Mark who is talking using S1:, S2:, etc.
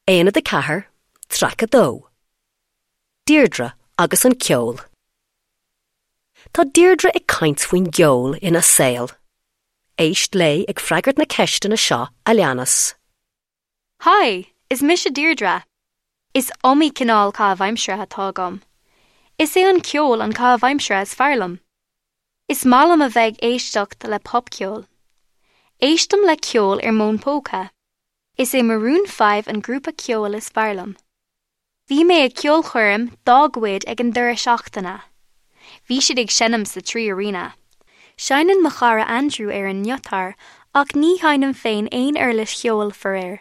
S1: Aonad 4, Traic 2. Deirdre agus an Ceol. Tá Deirdre ag caint faoin gceol ina saol. Éist léi ag freagairt na ceisteanna seo a leanas.
S2: Haigh, is mise Deirdre. Is iomaí cineál caitheamh aimsire atá agam. Is é an ceol an caitheamh aimsire is fearr liom. Is maith liom a bheith ag éisteacht le popcheol. Éistim le ceol ar m'fhón póca. Is é Maroon 5 an grúpa ceoil is fearr liom. Bhí mé ag ceolchoirm dá gcuid ag an deireadh seachtaine. Bhí siad ag seinm sa Three Arena. Seinneann mo chara Andrew ar an ngiotár ach ní sheinnim féin aon uirlis cheoil, faraor.